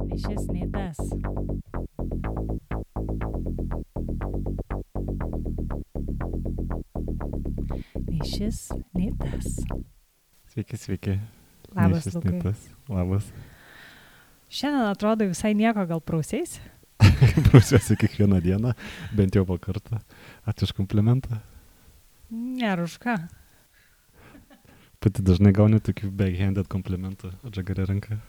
Nei šis, nei tas. Nei šis, nei tas. Sveiki. Labas, Nei šis, Lukai. nei tas. Labas. Šiandien atrodo visai nieko, gal prausiais? Prausiuosi kiekvieną dieną, bent jau po kartą. Ačiū už komplimentą. Nėra už ką. Pati dažnai gauni tokių backhanded komplimentų atžagarė ranka.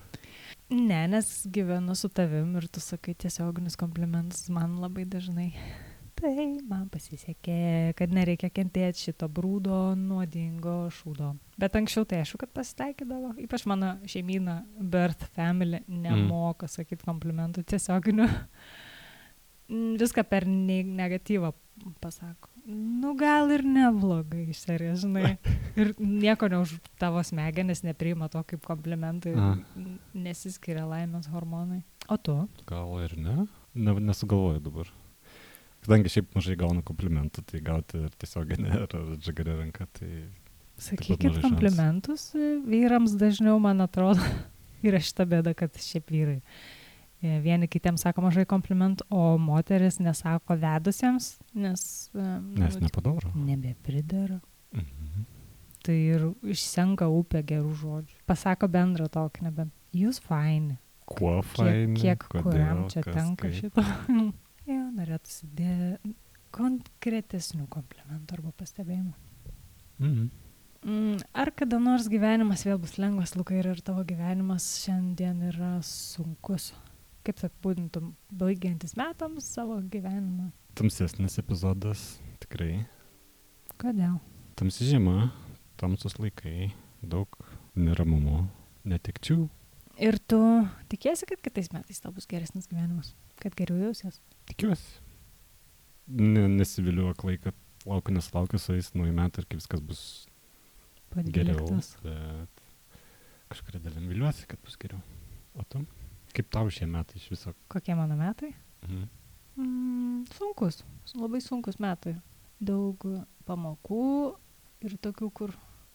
Ne, nes gyvenu su tavim ir tu sakai tiesioginius komplimentus man labai dažnai. Tai man pasisekė, kad nereikia kentėti šito brūdo, nuodingo šūdo. Bet anksčiau tai aišku, kad pasitaikydavo. Ypač mano šeimyna, birth family, nemoka sakyti komplimentų tiesioginių. Viską per negatyvą pasako. Nu gal ir neblogai, iš serijos, žinai. Ir nieko už tavo smegenis nepriima to kaip komplimentai. Nesiskiria laimės hormonai. O tu? Gal ir ne? Nesugalvoju dabar. Kadangi šiaip mažai gaunu komplimentų, tai gauti ir tiesioginę ar atžagarė ranka, tai... Sakykit komplimentus vyrams dažniau, man atrodo. Yra šita bėda, kad šiaip vyrai. Vieni kitiems sako mažai komplimentų, o moteris nesako vedusiems, nes nepadaro. Nebepridaro. Mhm. Tai ir išsenka upė gerų žodžių. Pasako bendrą tokį, nebent. Jūs faini. Kuo faini? Kiek kodėl, kuriam čia kas, tenka kaip. šito. Jo, norėtųsi konkretesnių komplimentų arba pastebėjimų. Mhm. Ar kada nors gyvenimas vėl bus lengvas, Lukai, ir tavo gyvenimas šiandien yra sunkus? Kaip apibūdintum baigiantis metams savo gyvenimą? Tamsesnis epizodas, tikrai. Kodėl? Tamsi žiema, tamsus laikai, daug neramumo, netekčių. Ir tu tikiesi, kad kitais metais tau bus geresnis gyvenimas? Kad geriau jausies? Tikiuosi. Nesiviliu aklai, kad nesulaukiu su jais nauji metai ir kaip viskas bus geriau. Bet kažkuria dalim viliuosi, kad bus geriau. O tu? Kaip tau šie metai iš viso? Kokie mano metai? Mhm. Labai sunkus metai. Daug pamokų ir tokių,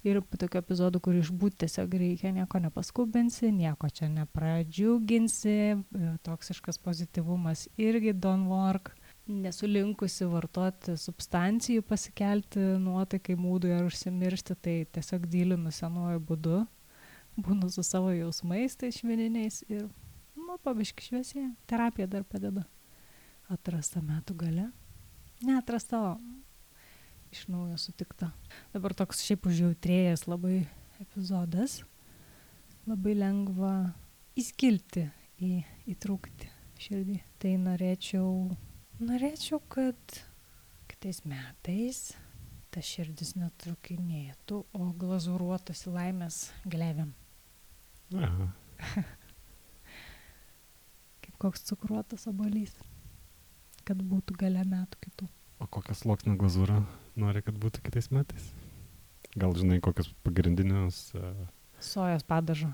tokių epizodų, kur išbūti tiesiog reikia, nieko nepaskubinsi, nieko čia nepradžiuginsi, toksiškas pozityvumas irgi don't work. Nesu linkusi vartoti substancijų, pasikelti nuotaikai, mūdui ar užsimiršti, tai tiesiog dylinu senuoju būdu, būnu su savo jausmais, tai švininiais ir pabiški šviesėje. Terapija dar padeda. Atrasta metų gale. Neatrasta, iš naujo sutikta. Dabar toks šiaip užjautrėjęs labai epizodas. Labai lengva įskilti, įtrūkti širdį. Tai norėčiau, kad kitais metais ta širdis netrukinėtų, o glazūruotųsi laimės glėvėm. Aha. Kaip koks cukruotas obuolys, kad būtų gale metų kitų. O kokias sluoksnio glazūrą nori, kad būtų kitais metais? Gal žinai, kokius pagrindinius... Sojos padažo.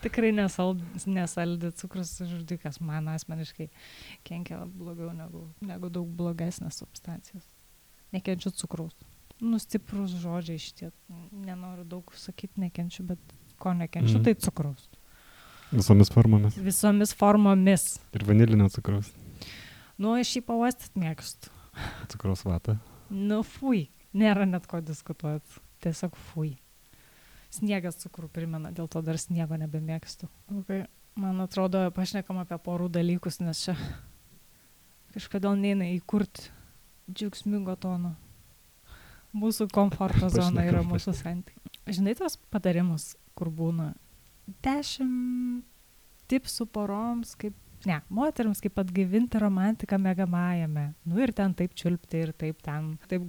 Tikrai nesaldi cukrus žudikas. Man asmeniškai kenkia blogiau negu daug blogesnės substancijos. Nekenčiu cukraus. Stiprus žodžiai šitie. Nenoriu daug sakyti nekenčiu, bet ko nekenčiu, tai cukraus. Visomis formomis. Visomis formomis. Ir vanilinio cukraus. Aš jį pavastyti mėgstu. Cukraus vatą. Fui. Nėra net ko diskutuoti. Tiesiog fui. Sniegas cukrų primena, dėl to dar sniego nebemėgstu. Okay. Man atrodo, pašnekam apie porų dalykus, nes čia kažkodėl neina įkurti džiaugsmingo tono. Mūsų komforto zona yra mūsų santykiai. Žinai tos patarimus, kur būna 10 tipsų poroms, moterims kaip atgaivinti romantiką miegamajame. Ir ten taip čiulpti, ir taip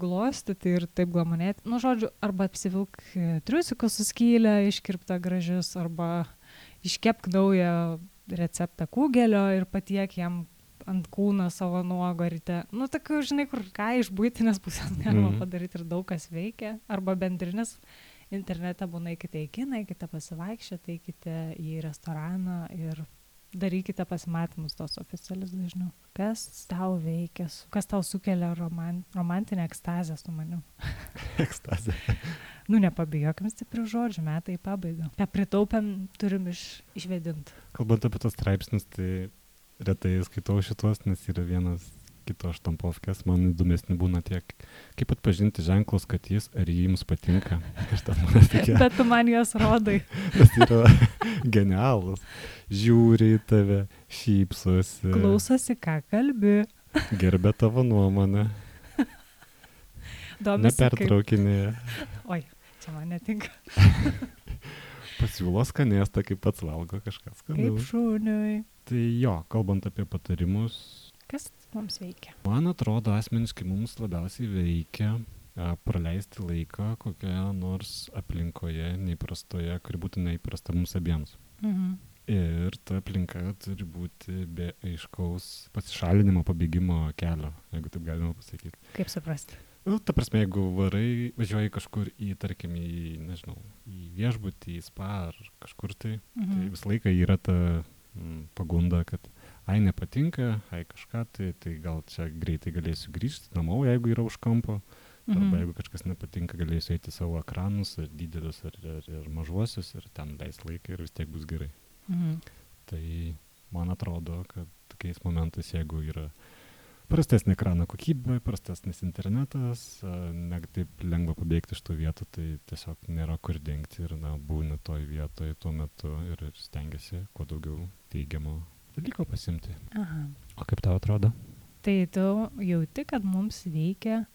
glostyti, ir taip glamonėti. Žodžiu, arba apsivilk triusikus su skylę, iškirptą gražius, arba iškepk naują receptą kūgelio ir patiek jam ant kūno savo nuogo ryte. Tokių, žinai, kur ką iš buitinės pusės galima padaryti ir daug kas veikia. Arba bendrinis internete būna eikite į kiną, eikite pasivaikščioti, eikite į restoraną ir darykite pasimatymus tos oficialius dažniau. Kas tau veikia, kas tau sukelia romantinę ekstazę su manim? Ekstazė. Nepabijokim stiprių žodžių, metai į pabaigą. Ką pritaupėm, turim išvedinti. Kalbant apie tos straipsnius, tai retai skaitau šitos, nes yra vienas kito štampovkės, man įdomesni būna tiek, kaip atpažinti ženklus, kad jis ar jums patinka. Bet tu man juos rodai. Tas yra genialus. Žiūri į tave, šypsosi. Klausosi, ką kalbi. Gerbė tavo nuomonę. Nepertraukinėje. Oi, čia man netinka. Pasiūlo skanėstą, kaip pats valgo kažkas skanaus. Kaip šuniui. Tai jo, kalbant apie patarimus. Kas mums veikia? Man atrodo, asmeniškai mums labiausiai veikia praleisti laiką kokioje nors aplinkoje neįprastoje, kuri būtų neįprasta mums abiems. Ir ta aplinka turi būti be aiškaus pasišalinimo, pabėgimo kelio, jeigu taip galima pasakyti. Kaip suprasti? Ta prasme, jeigu važiuoji kažkur tarkim, į viešbutį, į spa ar kažkur tai visą laiką yra ta pagunda, kad nepatinka, kažką, tai gal čia greitai galėsiu grįžti namo, jeigu yra už kampo, arba jeigu kažkas nepatinka, galėsiu eiti savo ekranus, ar didelius, ar mažuosius, ir ten leis laiką ir vis tiek bus gerai. Tai man atrodo, kad tokiais momentais, jeigu yra prastesnė ekrano kokybė, prastesnis internetas, ne taip lengva pabėgti iš tų vietų, tai tiesiog nėra kur dingti ir būni toj vietoj tuo metu ir stengiasi kuo daugiau teigiamo dalyko pasimti. Aha. O kaip tau atrodo? Tai tu jauti, kad mums veikia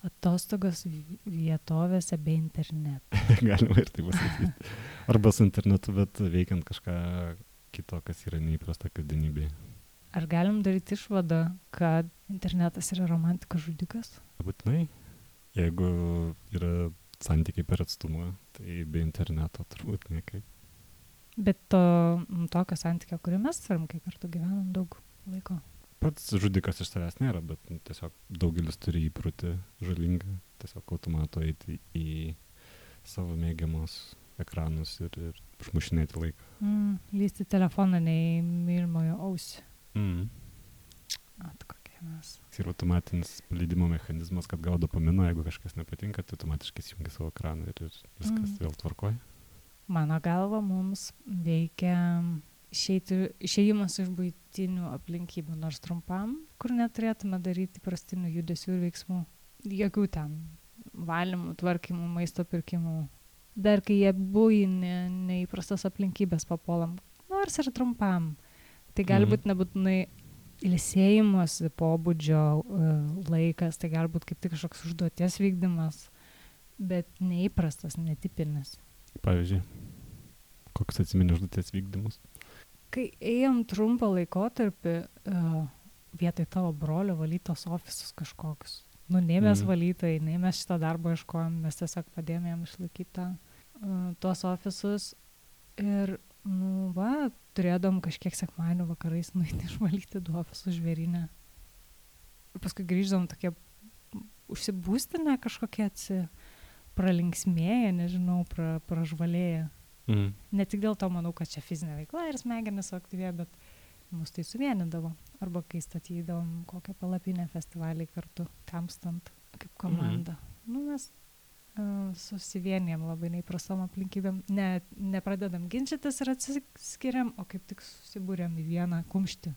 atostogos vietovėse be interneto. Galima ir taip pasakyti. Arba su internetu, bet veikiant kažką kito, kas yra neįprasta kasdienybėje. Ar galim daryti išvadą, kad internetas yra romantikos žudikas? Būtinai. Jeigu yra santykiai per atstumą, tai be interneto turbūt niekaip. Bet tokio santykio, kurį mes turim, kai kartu gyvenam daug laiko. Pats žudikas iš savęs nėra, bet tiesiog daugelis turi įprotį žalingą, tiesiog automatu eiti į savo mėgiamus ekranus ir užmušinėti laiką. Lysti telefoną nei mylimojo ausį. Kokie mes. Ir automatinis paleidimo mechanizmas, kad gaudo dopamino, jeigu kažkas nepatinka, tai automatiškai įsijungia savo ekraną ir viskas vėl tvarkoja. Mano galva mums veikia išėjimas iš buitinių aplinkybių, nors trumpam, kur neturėtume daryti prastinių judesių ir veiksmų. Jokių ten valymų, tvarkymų, maisto pirkimų. Dar kai jie buvo neįprastas aplinkybės papuolam, nors ir trumpam. Tai gali būti nebūtinai ilsėjimosi pobūdžio laikas, tai gali būti kaip tik kažkoks užduoties vykdymas, bet neįprastas, netipinis. Pavyzdžiui, koks atsimeni užduoties vykdymus? Kai ėjom trumpą laikotarpį vietoj tavo brolio valytos ofisus kažkokius. Nei mes valytojai, nei mes šito darbo ieškojom, mes tiesiog padėjom jam išlaikyti tuos ofisus ir turėdom kažkiek sekmadienio vakarais nueiti išvalyti du ofisus žvėryne. Ir paskui grįždom tokie užsibūstinę kažkokie pralinksmėję, nežinau, pražvalėję. Ne tik dėl to manau, kad čia fizinė veikla ir smegenis suaktyvėjo, bet mus tai suvienydavo. Arba kai statydavom kokią palapinę festivalį kartu, tamstant kaip komanda. Mes susivienijam labai neįprastom aplinkybėm. Nepradedam ginčytis ir atsiskiriam, o kaip tik susibūrėm į vieną kumštį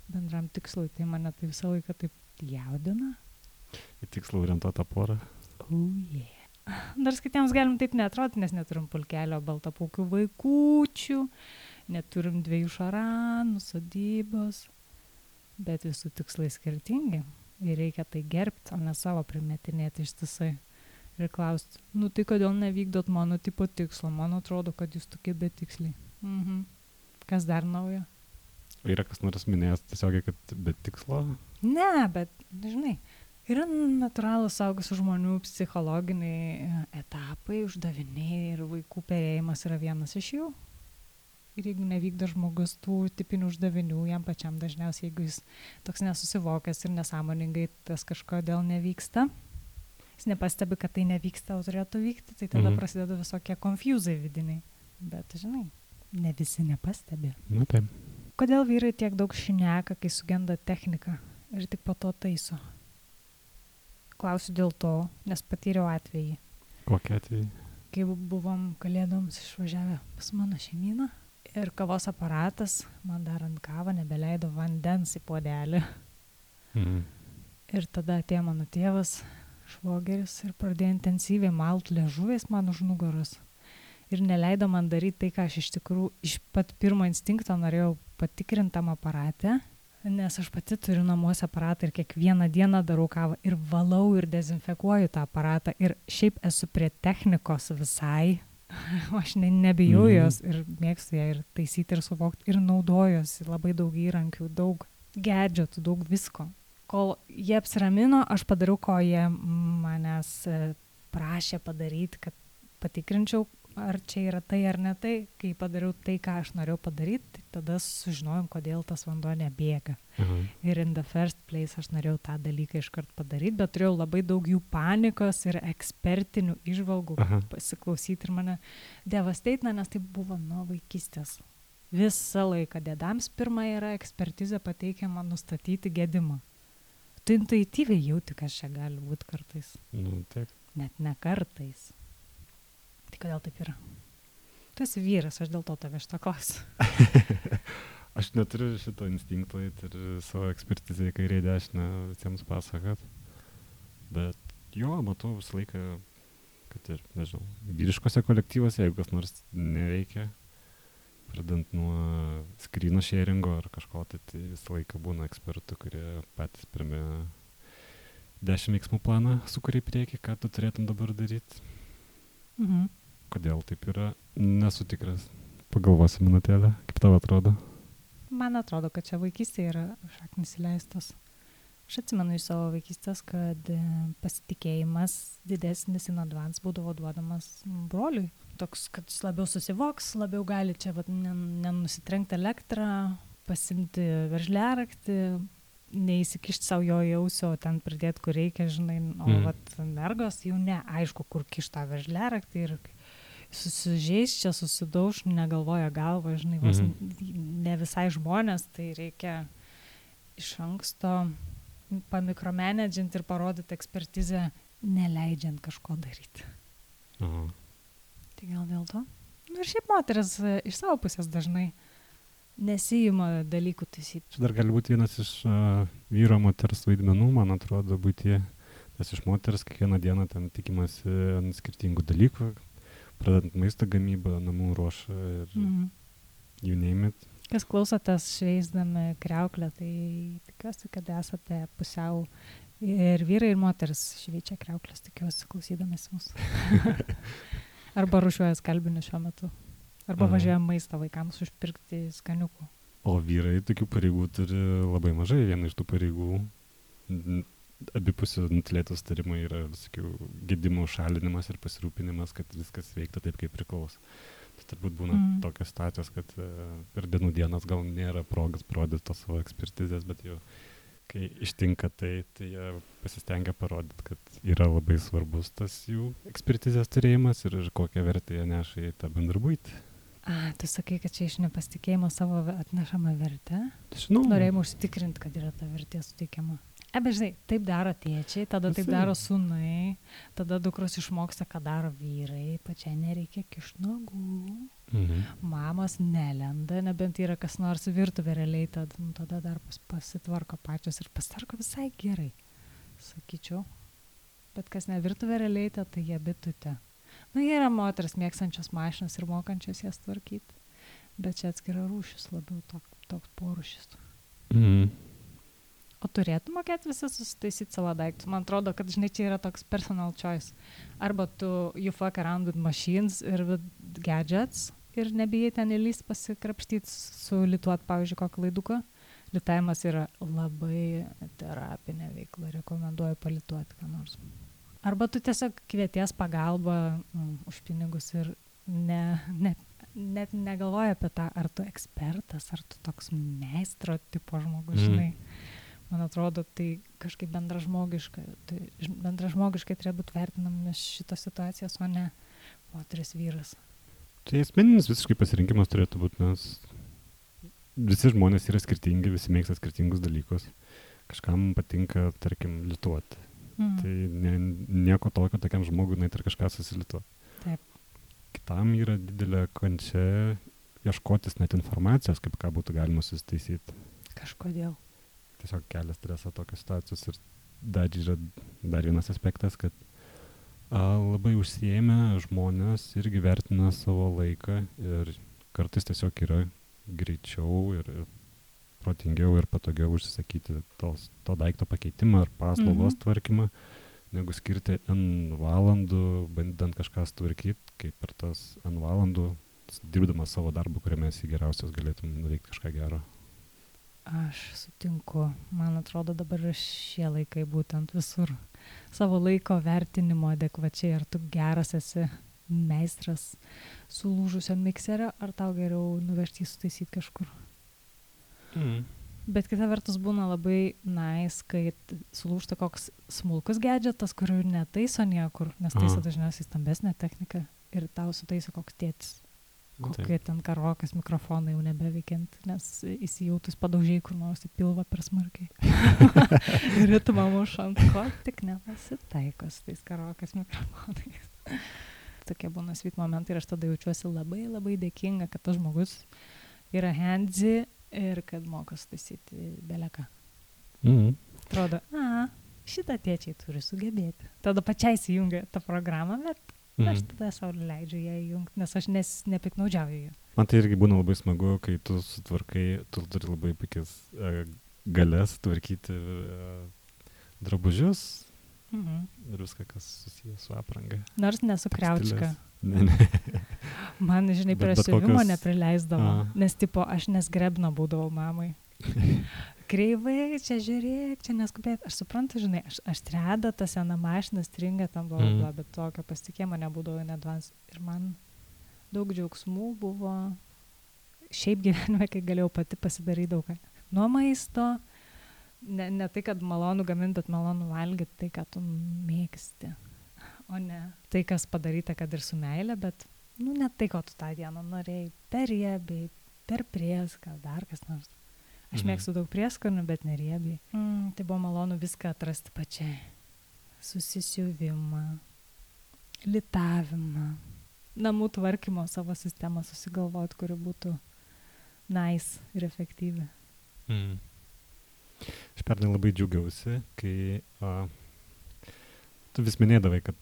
bendram tikslui. Tai mane tai visą laiką taip jaudina. Į tikslą orientuotą porą. Dar kitiems galim taip neatrodyti, nes neturim pulkelio baltapaukių vaikųčių, neturim 2 šaranų, sodybos, bet visų tikslai skirtingi. Ir reikia tai gerbti, o ne savo primetinėti ištisai. Ir klausti, tai kodėl nevykdot mano tipo tikslo? Man atrodo, kad jūs tokie betiksliai. Kas dar naujo? Yra kas nors minėjęs tiesiogiai, kad be tikslo? Ne, bet, žinai, yra natūralūs suaugusių žmonių psichologiniai etapai, uždaviniai ir vaikų perėjimas yra vienas iš jų. Ir jeigu nevykdo žmogus tų tipinių uždavinių, jam pačiam dažniausiai, jeigu jis toks nesusivokęs ir nesąmoningai tas kažkodėl nevyksta, jis nepastebi, kad tai nevyksta, o turėtų vykti, tai tada prasideda visokie konfuzai vidiniai. Bet, žinai, ne visi nepastebi. Taip. kodėl vyrai tiek daug šneka, kai sugenda technika ir tik po to taiso? Klausiu dėl to, nes patyriau atvejį. Kokį atvejį? Kai buvom kalėdoms išvažiavę pas mano šeimyną ir kavos aparatas, man darant kavą, nebeleido vandens į puodelį. Ir tada atėjo mano tėvas, švogeris, ir pradėjo intensyviai malt liežuviais man už nugaros. Ir neleido man daryti tai, ką aš iš tikrųjų iš pat pirmo instinkto norėjau patikrinti tam aparate, nes aš pati turiu namuose aparatą ir kiekvieną dieną darau kavą ir valau ir dezinfekuoju tą aparatą ir šiaip esu prie technikos visai, aš nebijau jos ir mėgstu ją ir taisyti ir suvokti ir naudojuosi labai daug įrankių, daug gadgetų, daug visko. Kol jie apsiramino, aš padariau, ko jie manęs prašė padaryti, kad patikrinčiau, ar čia yra tai ar ne tai. Kai padariau tai, ką aš norėjau padaryti, tai tada sužinojom, kodėl tas vanduo nebėga. Ir in the first place aš norėjau tą dalyką iškart padaryti, bet turėjau labai daug jų panikos ir ekspertinių įžvalgų pasiklausyti ir mane devasteina, nes tai buvo nuo vaikystės. Visą laiką dėdams pirma yra ekspertizė pateikiama nustatyti gedimą. Tu intuityviai jauti, kas čia gali būti kartais. Taip. Net ne kartais. Tai kodėl taip yra? Tu esi vyras, aš dėl to tave šitą klausiu. Aš neturiu šito instinkto ir savo ekspertizę į kairę dešinę visiems pasakot. Bet jo, matau visą laiką, kad ir, nežinau, vyriškose kolektyvose, jeigu kas nors neveikia, pradant nuo screen sharingo ar kažko, tai visą laiką būna ekspertų, kurie patys pirmie 10 veiksmų planą sukuria į priekį, ką tu turėtum dabar daryti. Kodėl taip yra, nesu tikras. Pagalvosi minutėlę, kaip tau atrodo? Man atrodo, kad čia vaikystėje yra šaknis įleistos. Aš atsimenu iš savo vaikystės, kad pasitikėjimas didesnis in advance būdavo duodamas broliui. Toks, kad jis labiau susivoks, labiau gali čia nenusitrenkti elektrą, pasimti veržliaraktį, neįsikišti savo jo jausio, ten pridėti, kur reikia, žinai, o mergos jau neaišku, kur kišta veržliaraktį ir susižeis čia, susidauž, negalvoja galva, žinai, ne visai žmonės, tai reikia iš anksto pamikromanedžinti ir parodyti ekspertizę, neleidžiant kažko daryti. Tai gal dėl to? Ir šiaip moteris iš savo pusės dažnai nesijima dalykų taisyti. Čia dar gali būti vienas iš vyro moters vaidmenų, man atrodo, būti, nes iš moters kiekvieną dieną ten tikimasi ant skirtingų dalykų, pradedant maisto gamybą, namų ruošą ir you name it. Kas klausotės šveisdami kriauklę, tai tikiuosi, kad esate pusiau ir vyrai, ir moteris šveičia kriauklės, tikiuosi klausydamės mūsų. Arba rušiuoja skalbinius šiuo metu. Arba važiuoja maistą vaikams užpirkti skaniukų. O vyrai tokių pareigų turi labai mažai. Viena iš tų pareigų abipusių nutylėtų sutarimai yra visokių gedimų šalinimas ir pasirūpinimas, kad viskas veiktų taip, kaip priklauso. Tai turbūt būna tokios situacijos, kad per dienų dienas gal nėra progas parodyti tos savo ekspertizės, bet jau kai ištinka tai jie pasistengia parodyti, kad yra labai svarbus tas jų ekspertizės turėjimas ir kokią vertę jie neša į tą bendrą buitį. Tu sakai, kad čia iš nepasitikėjimo savo atnešama vertė? Žinau. Norėjimo užsitikrinti, kad yra ta vertė suteikiama. Bet žinai, taip daro tėčiai, tada taip daro sūnai, tada dukros išmoksta, ką daro vyrai, pačiai nereikia kišti nagų, mamos nelenda, nebent yra kas nors virtuvė realiai, tada dar pasitvarko pačios ir pasitvarko visai gerai, sakyčiau. Bet kas ne virtuvė realiai, tai jie bitutė. Jie yra moteris mėgstančios mašinas ir mokančios jas tvarkyti, bet čia atskira rūšis, labiau toks porūšis. O turėtų mokėti visi susitaisyti savo daiktus. Man atrodo, kad žinai, čia yra toks personal choice. Arba you fuck around with machines ir with gadgets ir nebijai ten įlysti pasikrapštyti, sulituoti, pavyzdžiui, kokį laiduką. Litavimas yra labai terapinė veikla, rekomenduoju palituoti ką nors. Arba tu tiesiog kvieties pagalbą už pinigus ir net negalvoji apie tą, ar tu ekspertas, ar tu toks meistro tipo žmogus, žinai. Man atrodo, tai kažkaip bendražmogiškai turėjo būti vertinamas šitos situacijos, o ne moteris vyras. Tai asmeninis visiškai pasirinkimas turėtų būti, nes visi žmonės yra skirtingi, visi mėgsta skirtingus dalykus. Kažkam patinka, tarkim, lituoti. Tai nieko tokio tokiam žmogui, net ir kažką susilituoti. Taip. Kitam yra didelė kančia ieškotis net informacijos, kaip ką būtų galima susitaisyti. Kažkodėl. Tiesiog kelia stresą tokios situacijos. Ir dar yra dar vienas aspektas, kad labai užsiėmę žmonės irgi vertina savo laiką ir kartais tiesiog yra greičiau ir protingiau ir patogiau užsisakyti to daikto pakeitimą ar paslaugos tvarkymą, negu skirti N valandų, bandant kažką sutvarkyti, kaip per tas N valandų, dirbdamas savo darbą, kuriame esi geriausias, galėtum nuveikti kažką gero. Aš sutinku. Man atrodo, dabar yra šie laikai būtent visur. Savo laiko vertinimo adekvačiai, ar tu geras esi meistras sulūžusio mikserio, ar tau geriau nuvežti sutaisyti kažkur. Bet kita vertus būna labai nice, kai sulūžta koks smulkus gadgetas, kurių netaiso niekur, nes taiso dažniausiai stambesnė technika ir tau sutaiso koks tėtis. Kokie ten karokas mikrofonai jau nebeveikiant, nes įsijautus padaužiai kur nors į pilvą per smarkiai. Ir ritmą mušant, ko tik nepasitaiko su tais karokas mikrofonais. Tokie būna sweet momentai ir aš tada jaučiuosi labai labai dėkinga, kad tas žmogus yra handsy ir kad moka sutaisyti beleką. Atrodo, šitą tėčiai turi sugebėti. Tada pačiai įjungia tą programą, bet aš tada savo leidžiu ją įjungti, nes aš nepiknaudžiauju ją. Man tai irgi būna labai smagu, kai tu sutvarkai, tu turi labai puikias galės tvarkyti drabužius ir viską, kas susijęs su apranga. Nors nesu kriaučka. Ne. Man, žinai, prie siuvimo neprileisdavo, nes tipo aš nesgrebna būdavau mamai. Kreivai, čia žiūrėk, čia neskubėt. Aš suprantu, žinai, aš treda, ta sena mašina stringa tam, bet tokio pasitikėjimo nebūdavo nedvans. Ir man daug džiaugsmų buvo šiaip gyvenime, kai galėjau pati pasidaryti daug. Nuo maisto, ne tai, kad malonu gaminti, bet malonu valgyti tai, ką tu mėgsti. O ne tai, kas padaryta, kad ir su meile, bet ne tai, ko tu tą dieną norėjai. Per riebiai, per prieską, dar kas nors. Aš mėgstu daug prieskonių, bet neriebiai. Tai buvo malonu viską atrasti pačiai. Susisiuvimą, litavimą, namų tvarkymo savo sistemą susigalvoti, kuri būtų nice ir efektyvi. Aš pernai labai džiaugiausi, kai tu vis minėdavai, kad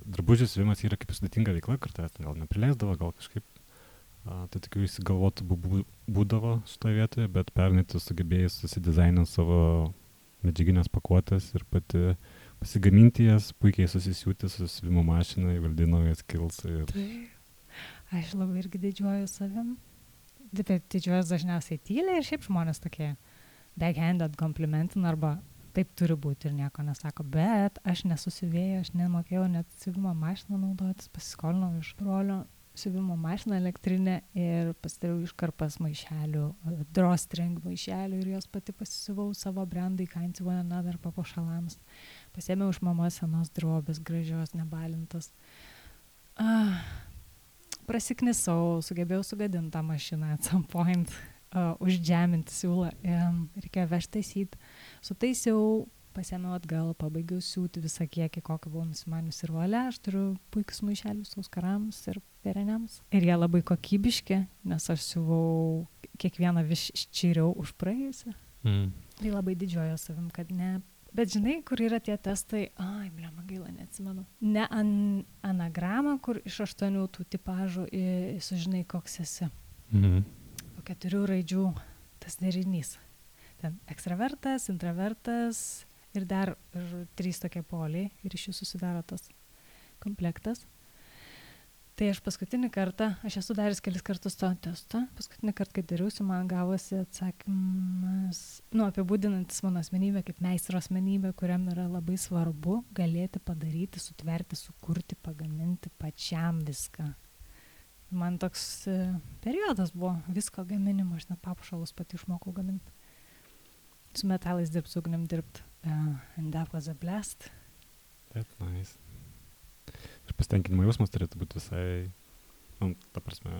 drabužių siuvimas yra kaip sudėtinga veikla, kartais gal neprileisdavo, gal kažkaip. Tai tokių įsigalvotų būdavo šitoje vietoje, bet pernai tu sugebėjai susidizaininti savo medžiaginės pakuotės ir pati pasigaminti jas, puikiai susisiūti su siuvimo mašina, įvaldino jas kils. Aš labai irgi didžiuoju savim. Didžiuojas dažniausiai tyliai ir šiaip žmonės tokie backhanded komplimentina arba taip turi būti ir nieko nesako, bet aš nesusivėjau, aš nemokėjau net siuvimo mašiną naudotis, pasiskolinau iš brolio siuvimo mašiną elektrinę ir pasidariau iškarpas maišelių, drawstring maišelių ir jos pati pasisiuvau savo brandai Kinds One Another papuošalams. Pasėmiau iš mamos senos drobės, gražios, nebalintos. Prasiknisau, sugebėjau sugadinti tą mašiną at some point, uždžeminti siūlą, reikėjo vežti taisyti. Sutaisiau, pasėmiau atgal, pabaigiau siūti visą kiekį, kokį buvau nusimanius ir valia. Aš turiu puikius maišelius auskarams ir pereniams. Ir jie labai kokybiški, nes aš siuvau kiekvieną vis ščiriau už praėjusią. Tai labai didžiuoju savim, kad ne. Bet žinai, kur yra tie testai, blema gaila, neatsimenu. Ne anagramą, kur iš 8 tų tipažų sužinai, koks esi. Po 4 raidžių tas derinys. Ten ekstravertas, intravertas ir dar 3 tokie poliai ir iš jų susidaro tas komplektas. Tai aš paskutinį kartą, aš esu daręs kelis kartus to testą, paskutinį kartą, kai dariausi, man gavosi atsakymas, apibūdinantis mano asmenybę kaip meistro asmenybę, kuriam yra labai svarbu galėti padaryti, sutverti, sukurti, pagaminti pačiam viską. Man toks periodas buvo visko gaminimo, aš net papuošalus pati išmokau gaminti. Su metalais dirbti, su ugnim dirbti. And that was a blast. That's nice. Ir pasitenkinimo jausmas turėtų būti visai, ta prasme,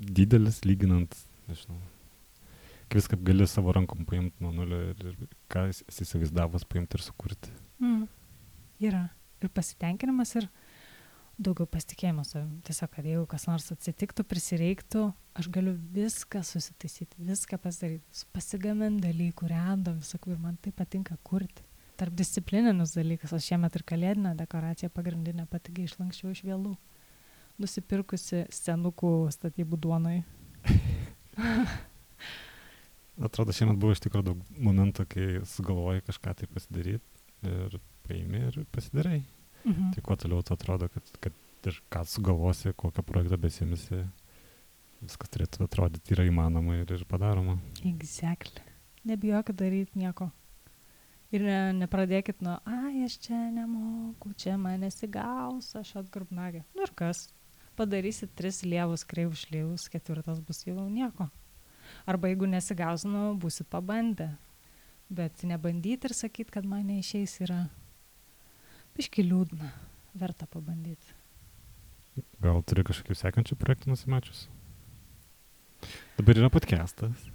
didelis, lyginant, nežinau, kai viską gali savo rankom paimti nuo nulio ir ką esi įsivaizdavęs paimti ir sukurti. Yra ir pasitenkinimas, ir daugiau pasitikėjimo savim. Tiesiog, kad jeigu kas nors atsitiktų, prisireiktų, aš galiu viską susitaisyti, viską pasidaryti, pasigaminti dalykų, random, visakų, ir man tai patinka kurti. Tarpdisciplininis dalykas, aš šiemet ir kalėdinę dekoraciją pagrindinę pati išlanksčiau iš vėlų, nusipirkusi senukų statybų duonai. Atrodo, šiemet buvo iš tikrųjų daug momentų, kai sugalvoji kažką tai pasidaryti ir paimi ir pasidarai. Tai kuo toliau to atrodo, kad ir ką sugalvosi, kokią projektą besimisi, viskas turėtų atrodyti yra įmanoma ir padaroma. Exactly. Nebijokit daryti nieko. Ir nepradėkit nuo, aš čia nemoku, čia man nesigaus, aš atgrubnagė. Ir kas? Padarysit 3 lievus, kreivus šleivus, 4 bus jau nieko. Arba jeigu nesigaus, būsit pabandę. Bet nebandyti ir sakyti, kad man neišeis, yra biški liūdna. Verta pabandyti. Gal turi kažkokių sekančių projektų nusimačius? Dabar yra podcastas.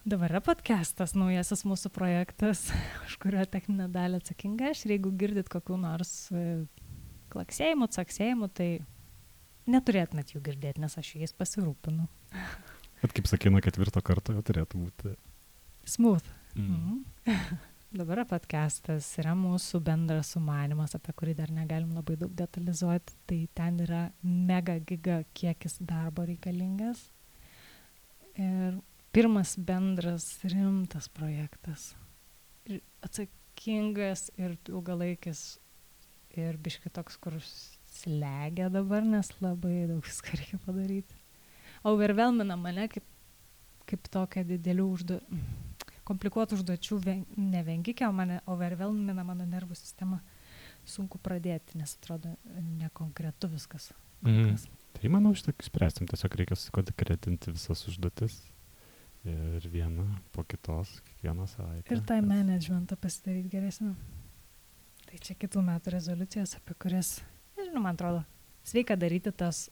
Dabar yra podcastas, naujasis mūsų projektas, už kurio techninę dalį atsakinga aš. Ir jeigu girdit kokių nors klaksėjimų, caksėjimų, tai neturėtumėt jų girdėti, nes aš jais pasirūpinu. Bet kaip sakė, nuo 4 karto jau turėtų būti smooth. Dabar podcastas yra mūsų bendras sumanymas, apie kurį dar negalim labai daug detalizuoti. Tai ten yra mega giga kiekis darbo reikalingas. Ir pirmas bendras rimtas projektas. Ir atsakingas ir ilgalaikis ir biški toks, kur slegia dabar, nes labai daug viską reikia padaryti. Overwhelmina mane kaip tokia didelių komplikuotų užduočių nevengikė, o mane overwhelmina mano nervų sistema. Sunku pradėti, nes atrodo nekonkretu viskas. Tai manau, šitą spręsim. Tiesiog reikia sukonkretinti visas užduotis ir vieną po kitos, kiekvieną savaitę. Ir time managementą pasidaryti geresnį. Tai čia kitų metų rezoliucijas, apie kurias, nežinau, man atrodo, sveika daryti tas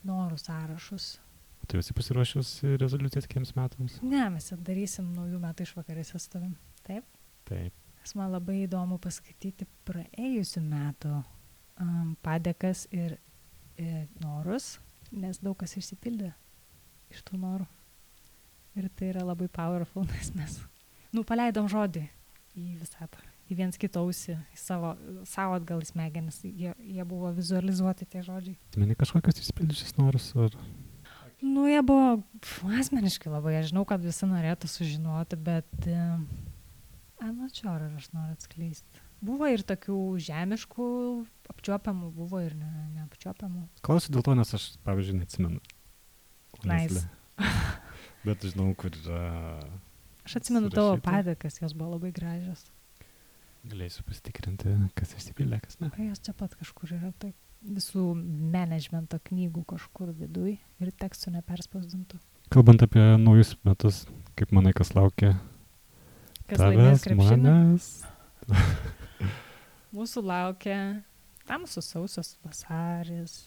norų sąrašus. Tu esi pasiruošęs rezoliucijas kitiems metams? Ne, mes darysim naujų metų išvakarėse su tavim. Taip? Taip. Nes man labai įdomu paskaityti praėjusių metų padėkas ir norus, nes daug kas išsipildė iš tų norų. Ir tai yra labai powerful, nes mes paleidom žodį į visatą, į viens kitą ausį, į savo atgal į smegenis. Jie buvo vizualizuoti tie žodžiai. Meni kažkokios išsipildžiusios norus? Ar... Jie buvo asmeniškai labai. Aš žinau, kad visi norėtų sužinoti, bet ar aš noriu atskleisti. Buvo ir tokių žemiškų apčiuopiamų, buvo ir neapčiuopiamų. Klausiu dėl to, nes aš, pavyzdžiui, neatsimenu. Nice. Bet žinau, kur yra... Aš atsimenu tavo padėkas, jos buvo labai gražios. Galėsiu pasitikrinti, kas išsipildė, kas ne. Jos čia pat kažkur yra taip. Visų managemento knygų kažkur viduj ir tekstų neperspausdintų. Kalbant apie naujus metus, kaip manai, kas laukia? Kas laimės krepšinį? Manęs. Mūsų laukia tamsus sausas vasaris,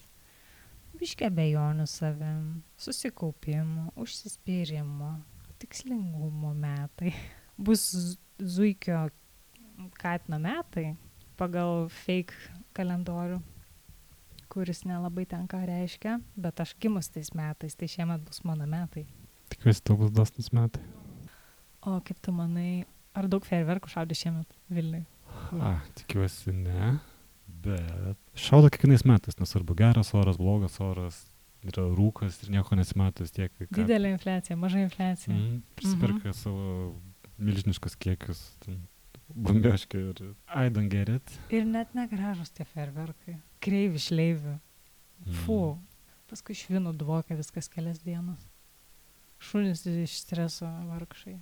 biškį abejonių savim, susikaupimo, užsispyrimo, tikslingumo metai. Bus zuikio katino metai pagal fake kalendorių, kuris nelabai ten ką reiškia, bet aš gimus tais metais, tai šiemet bus mano metai. Tikiuosi, tau bus dosnus metai. O kaip tu manai, ar daug fejerverkų šaudė šiemet Vilniui? Tikiuosi ne, bet šaudo kiekvienais metais, nesvarbu geras oras, blogas oras, yra rūkas ir nieko nesimato vis tiek. Didelė infliacija, maža infliacija. Prisiperka savo milžiniškus kiekius, bambioškių ir I don't get it. Ir net negražus tie fejerverkai. Kreivi, šleivi. Paskui švinų dvokia viskas kelias dienas. Šunys iš streso vargšai.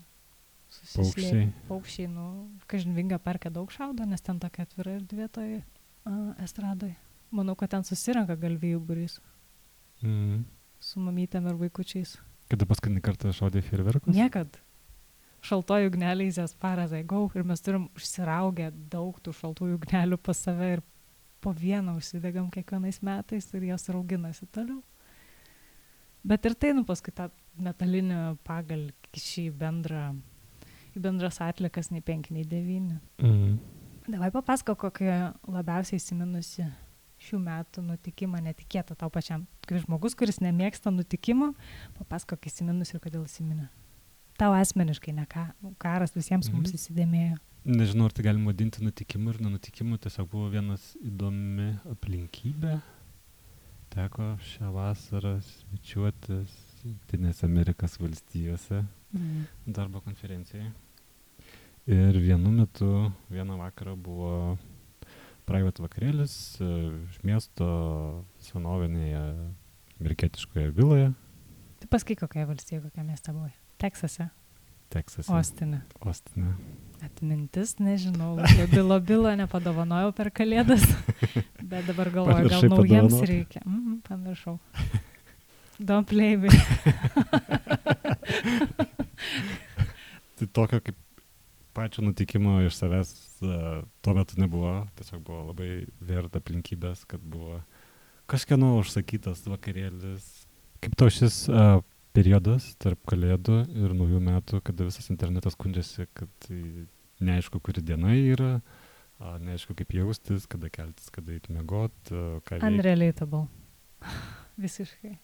Paukščiai, kažin Vinga parke daug šaudo, nes ten tokia atvira erdvė toj estradoj. Manau, kad ten susirenka galvijų būrys. Su mamytėm ir vaikučiais. Kada paskutinį kartą šaudė fejerverkus? Niekad. Šaltojų ugneliai as far as I go, ir mes turim užsiraugę daug tų šaltųjų ugnelių pas save ir po vieną užsidegam kiekvienais metais ir jos rauginasi toliau. Bet ir tai, paskui tą metalinį pagalį kiši į bendras atlikas nei 5, nei 9. Mhm. Davai papasako, kokią labiausiai įsiminusi šių metų nutikimą netikėtą tau pačiam. Kaip žmogus, kuris nemėgsta nutikimų, papasako, kai įsiminus ir kodėl įsiminė. Tau asmeniškai, ne karas visiems mums įsidėmėjo. Nežinau, ar tai galima vadinti nutikimu ir nenutikimu, tiesiog buvo vienas įdomi aplinkybė. Teko šią vasarą svečiuotis Jungtinėse Amerikos valstijose darbo konferencijai. Ir vienu metu, vieną vakarą buvo private vakarėlis iš miesto senovinėje amerikietiškoje viloje. Tai pasakyk, kokia valstija, kokia mieste buvai? Teksase? Teksase. Ostine. Atmintis, nežinau, bilo nepadovanojau per kalėdas, bet dabar galvoju, gal naujiems reikia. Pamiršau. Don't play me. Tai tokio kaip pačio nutikimo iš savęs tuo metu nebuvo, tiesiog buvo labai verta aplinkybės, kad buvo kažkieno užsakytas vakarėlis. Kaip to šis periodas tarp kalėdų ir naujų metų, kada visas internetas skundžiasi, kad neaišku, kuri diena yra, neaišku, kaip jaustis, kada keltis, kada eiti miegot, ką veikti. Unrelatable. Visiškai.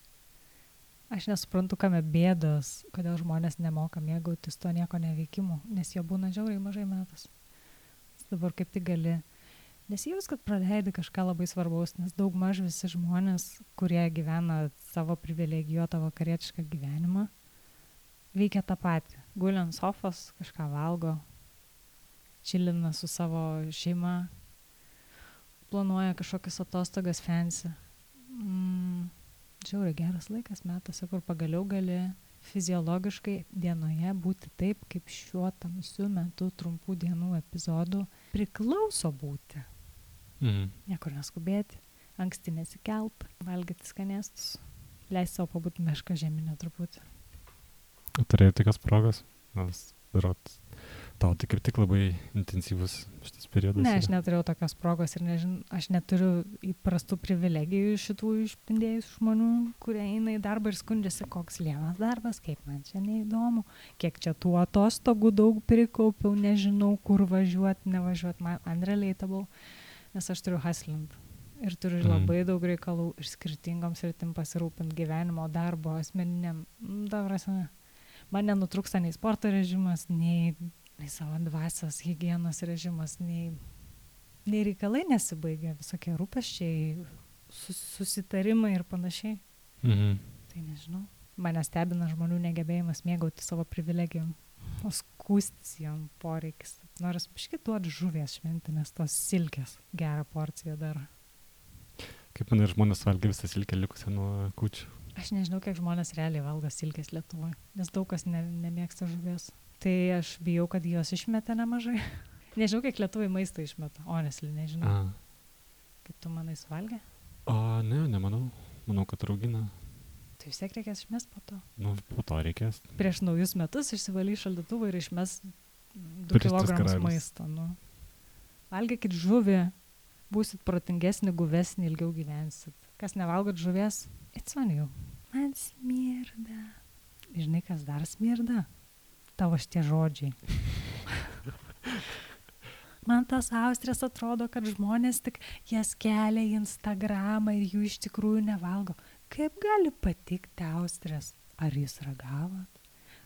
Aš nesuprantu, kame bėdos, kodėl žmonės nemoka mėgautis to nieko neveikimu, nes jo būna žiauriai mažai metas. Dabar kaip tik gali nesijaus, kad praleidi kažką labai svarbaus, nes daug maž visi žmonės, kurie gyvena savo privilegijuotą vakarietišką gyvenimą, veikia tą patį. Guli ant sofos, kažką valgo, čilina su savo šeima, planuoja kažkokias atostogas fancy. Žiauriai geras laikas metuose, kur pagaliau gali fiziologiškai dienoje būti taip, kaip šiuo tamsiu metu trumpų dienų epizodų priklauso būti. Niekur neskubėti, anksti nesikelt, valgyti skanėstus, leisti savo pabūti mešką žeminę truputį. Turėjai tokios progos? Tau tai kaip tik labai intensyvus šitas periodas? Ne, aš neturėjau tokios progos ir aš neturiu įprastų privilegijų šitų išpindėjusių žmonių, kurie eina į darbą ir skundžiasi, koks lievas darbas, kaip man čia neįdomu, kiek čia tų atostogų daug prikaupiau, nežinau, kur važiuoti, nevažiuoti, man unrelatable, nes aš turiu hustlint ir turiu labai daug reikalų ir skirtingom sritim pasirūpint gyvenimo, darbo, asmeniniam, man nenutrūksta nei sporto režimas, nei savo dvasios higienos režimas, nei reikalai nesibaigia, visokie rūpesčiai, susitarimai ir panašiai. Tai nežinau. Mane stebina žmonių negebėjimas mėgauti savo privilegijom, o skūstis jom poreikis. Noris biškį duoti žuvies šventinės, tos silkės, gerą porciją dar. Kaip manai, žmonės valgia visą silkę likusią nuo kūčių? Aš nežinau, kiek žmonės realiai valgo silkės Lietuvoje, nes daug kas nemėgsta žuvies. Tai aš bijau, kad jos išmeta nemažai. Nežinau, kiek Lietuvai maistą išmeta. Honestly, nežinau. Kaip tu manai suvalgė? Ne, nemanau. Manau, kad raugina. Tai vis tiek reikės išmest po to. Po to reikės. Prieš naujus metus išsivalai šaldytuvą ir išmes 2 kilogramus maisto. Valgykit žuvį, būsit protingesni, guvesni, ilgiau gyvensit. Kas nevalgot žuvies, it's on you. Man smirda. Žinai, kas dar smirda? Tavo šitie žodžiai. Man tas austrės atrodo, kad žmonės tik jas kelia į Instagramą ir jų iš tikrųjų nevalgo. Kaip gali patikti austrės? Ar jūs ragavot?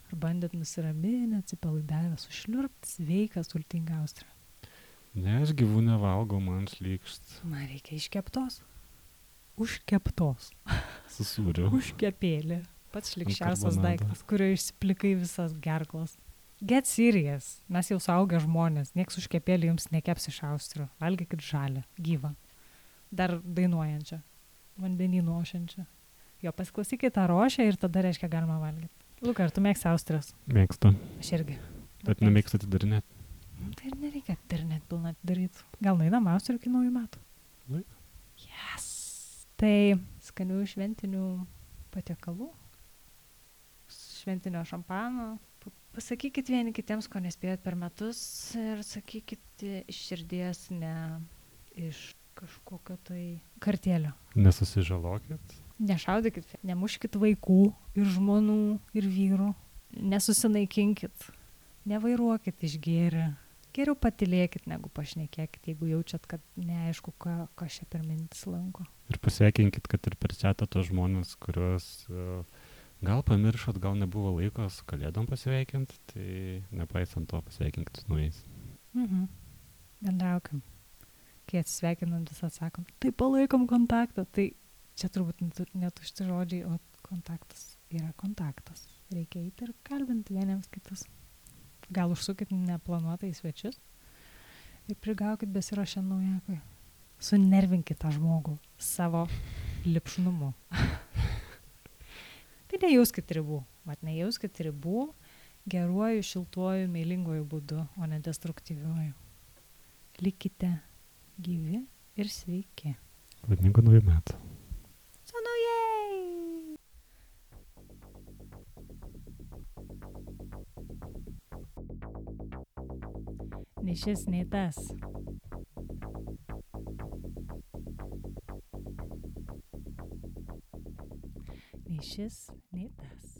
Ar bandėt nusiraminę, atsipalaidavę, sušliurpti sveiką, sultingą austrę? Ne, aš gyvų nevalgau, man šlykšt. Man reikia iškeptos. Užkeptos. Su sūriu. Užkepėlė. Pats šlikščiausias daiktas, kurio išsiplikai visas gerklas. Get serious. Mes jau suaugę žmonės. Nieks užkepėlį jums nekeps iš austrių. Valgykit žalę, gyvą. Dar dainuojančią. Vandenynų ošiančią. Jo, pasiklausykit tą rošę ir tada reiškia galima valgyti. Luka, ar tu mėgsti austrias? Mėgstu. Aš irgi. Bet nemėgstu atidarinėti. Tai ir nereikia atidarinėti pilną atidaryti. Gal nueinam austrių iki naujų metų? Yes. Tai skanių šventinių patiekalų. Šventinio šampano. Pasakykit vieni kitiems, ko nespėjot per metus ir sakykit iš širdies, ne iš kažkokio tai kartėlio. Nesusižalokit. Nešaudykit, nemuškit vaikų ir žmonų ir vyrų. nesusinaikinkit, nevairuokit išgėrę. Geriau patylėkit, negu pašnekėkit, jeigu jaučiat, kad neaišku, ką čia per mintis lanko. Ir pasveikinkit, kad ir per chatą tos žmonės, kuriuos gal pamiršot, gal nebuvo laiko su kalėdom pasveikinti, tai nepaisant to pasveikinkit su naujais. Bendraukim. Kai atsisveikinant vis atsakom, tai palaikom kontaktą. Tai čia turbūt netušti žodžiai, o kontaktas yra kontaktas. Reikia eiti ir kalbinti vieniems kitus. Gal užsukit neplanuotai į svečius ir prigaukit besiruošiant naujakui. Sunervinkit tą žmogų savo lipšnumu. Tai nejauskit ribų. Nejauskit ribų geruoju, šiltuoju, meilinguoju būdu, o ne destruktyviuoju. Likite gyvi ir sveiki. Laimingų naujų metų. Su naujais! Nei šis, nei tas. Nei šis, nei tas.